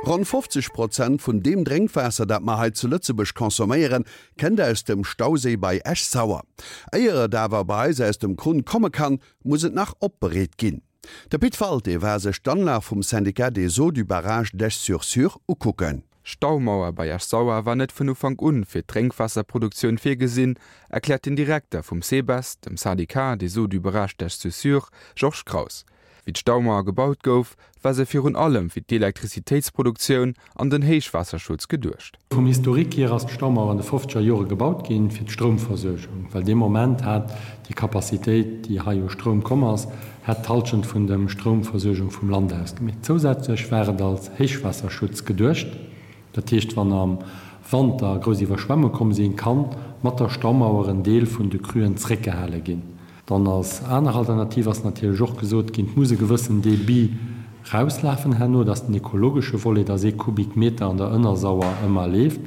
Ronn 50 Prozent vun deem Drénkwaasser, dat mer hei zu Lëtzebuerg consomméieren, kënnt aus dem Stauséi bei Esch-Sauer. Éier et awer bei eis aus dem Krunn komme kann, muss et nach opbereet ginn. De Pit Walté war sech d'Anlag vum Syndicat des eaux du barrage d'Esch-sur-Sûre ukucken. D'Staumauer bei Esch-Sauer war net vun Ufank un fir d'Drénkwaasserproduktioun virgesinn, erkläert den Direkter vum SEBES, dem Syndicat des eaux du barrage d'Esch-sur-Sûre, Georges Kraus. Wéi d'Staumauer gebaut gouf, war se virun allem fir d'Elektrizitéitsproduktioun an den Héichwaasserschutz geduecht. Vum Historique hier ass d'Staumauer an de fofzeger Jore gebaut ginn fir d'Stroumversuergung, well dee Moment hat déi Capacitéit, déi hei u Stroum komm ass, hätt d'Halschent vun dem Stroumversuergung vum Land ausgemeet. Zousätzlech war et als Héichwaasserschutz geduecht, dat heescht wann am Wanter grouss Iwwerschwemmunge komm sinn, kann mat der Staumauer en Deel vun de Cruen zréckgehale ginn. Dann als aner Alternativ ass natierlech och gesot ginn, et muss e gewëssen Débit rauslafen herno, dat ass den ekologesche Volet, dass ee Kubikmeter an der Ënnersauer ëmmer leeft.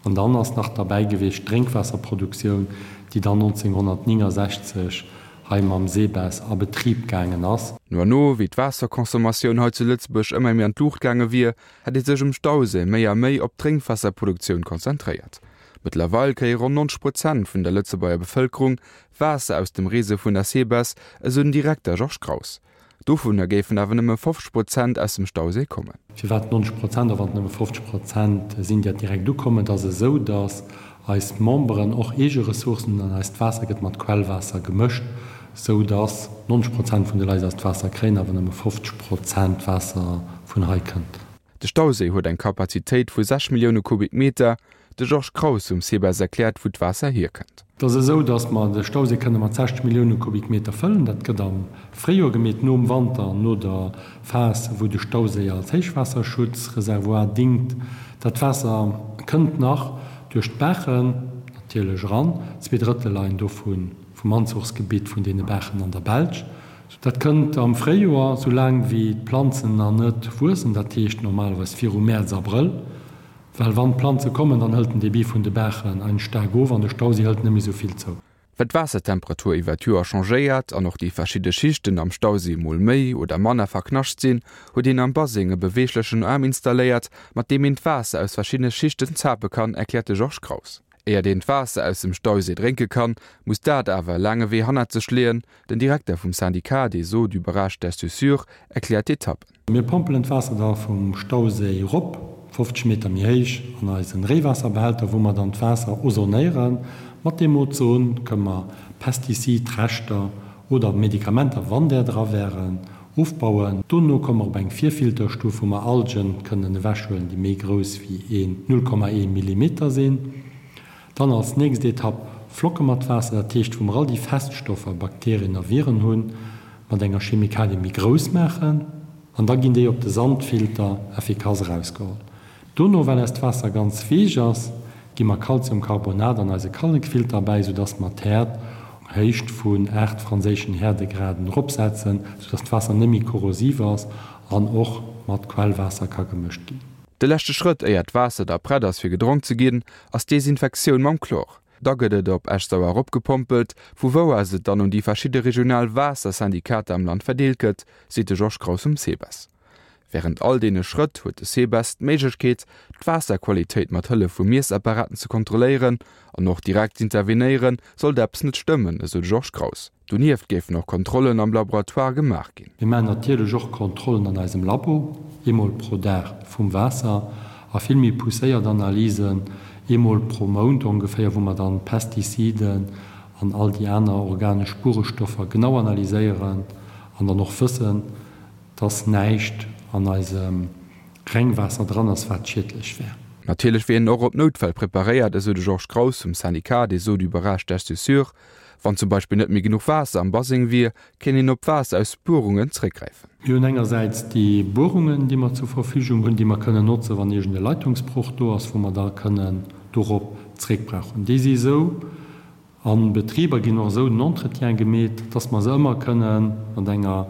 An dann ass nach derbäi gewiescht d'Drénkwaasserproduktioun, déi dann 1969 hei mam SEBES a Betrib gaangen ass. No an no, wéi d'Waasserconsommatioun hei zu Lëtzebuerg ëmmer méi an d'Luucht gaange wier, hätt ee sech um Stauséi méi a méi op d'Drénkwaasserproduktioun konzentréiert. Mëttlerweil kréie ronn 90 Prozent vun der Lëtzebuerger Bevëlkerung Waasser aus dem Réseau vun der SEBES, esou den Direkter Georges Kraus. Dovunner géifen awer nëmme 50 Prozent aus dem Stauséi kommen. Firwat 90 Prozent a wann et nëmme 50 Prozent sinn, déi direkt ukommen? Et ass esou, datt eis Memberen och eege Ressourcen hunn an eist Waasser gëtt mat Quellwaasser gemëscht, esou datt 90 Prozent vun de Leit eist Waasser kréien, awer nëmme 50 Prozent Waasser vun hei kënnt. De Stauséi huet eng Kapazitéit vu 6 Millioune Kubikmeter. De Georges Kraus vum SEBES erkläert, wou d'Waasser hierkënnt. Et ass esou, datt mer de Stauséi kënne mat 60 Millioune Kubikmeter fëllen. Dat gëtt am Fréijoer gemeet, nom Wanter, no der Phas, wou de Stauséi als Héichwaasserschutzreservoir dingt. Dat Waasser kënnt nach duerch d'Baachen natierlech eran. Zweedrëttel leien dovu vum Anzuchsgebitt vun deene Baachen an der Belsch. Dat kënnt am Fréijoer, soulaang wéi d'Planzen nach net wuessen, dat heescht normalerweis viru Mäerz, Abrëll. Well wann d'Planze kommen, dann hëlt den Debit vun de Baachen eins staark of an de Stauséi hëlt net méi sou vill zou. Well d'Waassertemperatur iwwer d'Joer changéiert an och déi verschidde Schichten am Stauséi mol méi oder manner verknascht sinn, huet een am Baseng e beweeglechen Aarm installéiert, mat deem een d'Waasser aus verschiddene Schichten zape kann, erkläert de Georges Kraus. Éiert een d'Waasser aus dem Stauséi drénke kann, muss dat awer e laange Wee hannert sech leeën. Den Direkter vum Syndicat des eaux du barrage d'Esch-sur-Sûre erkläert d'Etappen. Mir pompelen d'Waasser da vum Stauséi erop, 50 Meter méi héich, an eisen Réiwaasserbehälter, wou mer dann d'Waasser ozonéieren. Mat deem Ozon kënne mer Pestizidreschter oder Medikamenter, wann där dra wären, ofbauen. Dono komme mer op eng Virfilterstuf, wou mer Algen kënnen ewechhuelen, déi méi grouss wéi een 0,1 Millimeter sinn. Dann als nächst Etapp flocke mer d'Waasser, dat heescht wou mer all déi Feststoffer, Bakterien a Viren hunn, mat enger Chemikalie méi grouss maachen an da ginn déi op de Sandfilter effikass erausgeholl. Dono, well eist Waasser ganz weech ass, gi mer Calciumcarbonat an eise Kallekfilter bäi, soudass mer d'Häert op Héicht vun 8 franséischen Häerdegraden eropsetzen, soudass d'Waasser net méi korrosiv ass an och mat Quellwaasser ka gemëscht ginn. De leschte Schrëtt, éier d'Waasser da prett ass fir gedronk ze ginn, ass d'Desinfektioun mam Chlor. Da gëtt et op Esch-Sauer eropgepompelt, vu wou aus et dann un déi verschidde regional Waassersyndikater am Land verdeelt gëtt, seet de Georges Kraus vum SEBES. Wärend all deene Schrëtt huet de SEBES d'Méiglechkeet, d'Waasserqualitéit mat Hëllef vu Miessapparaten ze kontrolléieren an och direkt z'intervenéieren, sollt eppes net stëmmen, esou de Georges Kraus. Donieft géifen och Kontrollen am Laboratoire gemaach ginn. Mir maachen natierlech och Kontrollen an eisem Labo, eemol pro Dag vum Waasser, a vill méi pousséiert Analysen, eemol pro Mount ongeféier, wou mer dann d'Pestiziden an all déi aner organesch Spuerestoffer genau analyséieren an dann och wëssen, dass näischt an eisem Rengwaasser dran ass, wat schiedlech wär. Natierlech wier een och op Noutfäll preparéiert, esou de Georges Kraus vum Syndicat des eaux du barrage d'Esch-sur-Sûre. Wann zum Beispill net méi genuch Waasser am Baseng wier, kéint een op Waasser aus Buerungen zréckgräifen. Mir hunn engersäits déi Buerungen, déi mer zur Verfügung hunn, déi mer kënnen notzen, wann iergend e Leitungsbroch do ass, wou mer da kënnen dorop zréckbrauchen. Déi si esou a Betriber ginn och esou den Entretien gemeet, dass mer se ëmmer kënne mat enger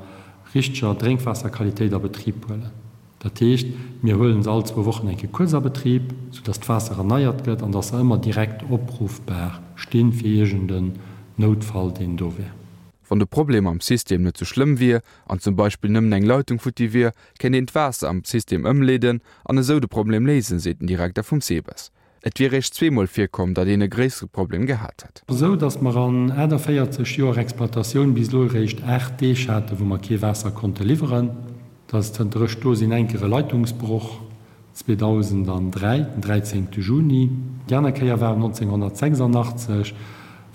richteger Drénkwaasserqualitéit a Betrib huelen. Dat heescht, mir huelen se all zwou Wochen eng Kéier kuerz a Betrib, soudass d'Waasser erneiert gëtt an dass se ëmmer direkt opruffbar stinn fir iergend en Noutfall, deen do wär. Wann de Problem am System net sou schlëmm wier an zum Beispill nëmmen eng Leitung futti wier, kéint een d'Waasser am System ëmleeden an esou de Problem léisen, seet den Direkter vum SEBES. Et wier réischt zweemol virkomm, datt een e gréissere Problem gehat hätt. Esou datt mer an 48 Joer Exploitatioun bis elo eréischt 8 Deeg haten, wou mer kee Waasser konnte liwweren. Dat ass zënter ech do sinn eng Kéier e Leitungsbroch 2003, den 13 Juni. Déi aner Kéier war 1986,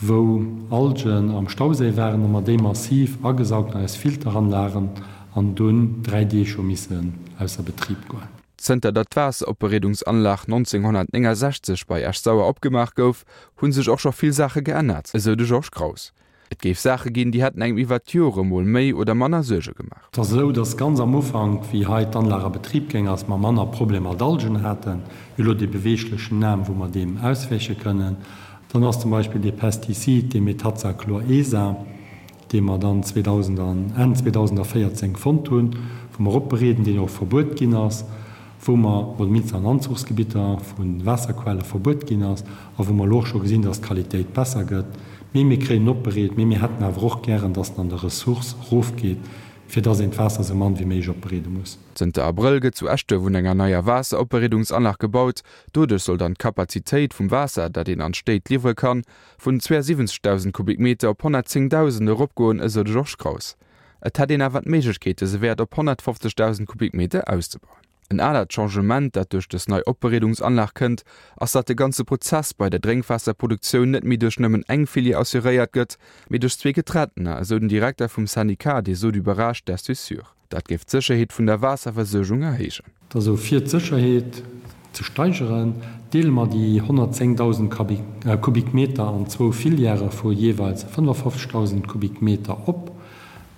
wou Algen am Stauséi waren a mer déi massiv agesaugt an eis Filteranlagen an dunn 3 Deeg hu missen ausser Betrib goen. Zënter datt d'Waasseropbereedungsanlag 1969 bei Esch-Sauer opgemaach gouf, hu sech och scho vill Saache geännert, esou de Georges Kraus. Et géif Saache ginn, déi hätten engem iwwert d'Jore mol méi oder manner Suerge gemaach. Et ass esou, dass ganz am Ufank, wéi hei d'Anlag a Betrib géing ass, mer manner Problemer mat Algen haten. Mir hu elo dee beweeglechen Naam, wou mer deem auswäiche kënnen. Dann ass zum Beispill dee Pestizid, dee Metazachlor-ESA, dee mer dann 2000 an Enn 2014 fonnt hunn, wou mer opbereeden, deen och verbuet ginn ass, wou mer, oder mindestens an Anzuchsgebitter vu Waasserquelle verbuet ginn ass a wou mer elo och scho gesinn, dass d'Qualitéit besser gëtt. Mee mir kréien en opbereet, mee mir hätten awer och gären, dass en an der Ressource erofgeet, fir dass een d'Waasser esou mann wéi méiglech opbereede muss. Zënter Abrëll gëtt zu Eschduerf un enger neier Waasseropbereedungsanlag gebaut. Doduerch soll dann d'Kapazitéit vum Waasser, dat een an d'Stéit liwwere kann, vun 72.000 Kubikmeter op 110.000 eropgoen, esou de Georges Kraus. Et hätt een awer d'Méiglechkeet dëse Wäert op 150.000 Kubikmeter auszebauen. En anert Changement, dat duerch dës nei Opbereedungsanlag kënnt, ass datt de ganze Prozess bei der Drénkwaasserproduktioun net méi duerch nëmmen eng Filière assuréiert gëtt, mee duerch zwee getrentener, esou den Direkter vum Syndicat des eaux du barrage d'Esch-sur-Sûre. Dat géif d'Sécherheet vun der Waasserversuergung erhéijen. Also fir d'Sécherheet ze steigeren, deele mer déi 110.000 Kubikmeter an zwou Filièrë vu jeeweils 55.000 Kubikmeter op,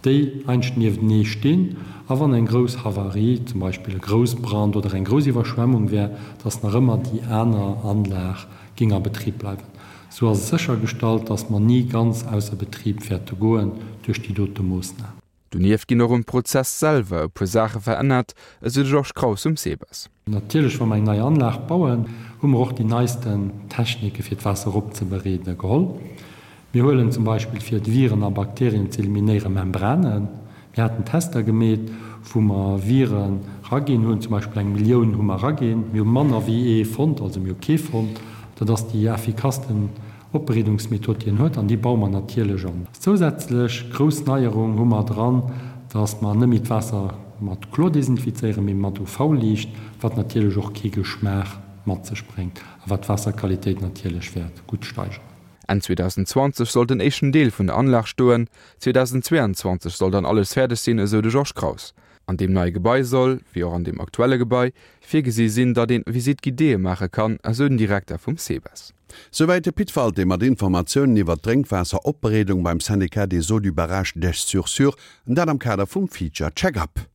déi einscht nieftenee stinn. A wann eng grouss Havarie, zum Beispill e Groussbrand oder eng grouss Iwwerschwemmung wär, dass nach ëmmer déi aner Anlag géing a Betrib bleiwen. Sou ass et séchergestallt, dass mer ni ganz ausser Betrib wäerte goen duerch déi dote Moossnam. Donieft ginn och um Prozess selwer e puer Saache verännert, esou de Georges Kraus vum SEBES. Natierlech, wa mer eng nei Anlag bauen, hu mer och déi neisten Technike fir d'Waasser eropzebereede geholl. Mir huelen zum Beispill fir d'Viren a Bakterien ze eliminéiere Membranen. Mir haten Tester gemeet, wou mer Viren raginn hunn, zum Beispill eng Millioun hu mer raginn. Mir hu manner wéi ee fonnt, also mir hu kee fonnt. Dat ass déi effikassten Opbereedungsmethod déi en huet, an déi baue mer natierlech an. Zousätzlech grouss Neierung hu mer dran, dass mer net méi d'Waasser mat Chlor desinfizéieren, mee mat UV-Liicht, wat natierlech och kee Geschmaach mat sech bréngt a wat d'Waasserqualitéit natierlech wäert gutt steigeren. Enn 2020 soll den éischten Deel vun der Anlag stoen, 2022 soll dann alles fäerdeg sinn, esou de Georges Kraus. An deem neie Gebai soll, wéi och an deem aktuelle Gebai, virgesi sinn, datt een Visite guidéeë maache kann, esou den Direkter vum SEBES. Souwäit de Pit Walté mat Informatiounen iwwer d'Drénkwaasseropbereedung beim Syndicat des Eaux du Barrage d'Esch-sur-Sûre, dat am Kader vum Feature Check-Up.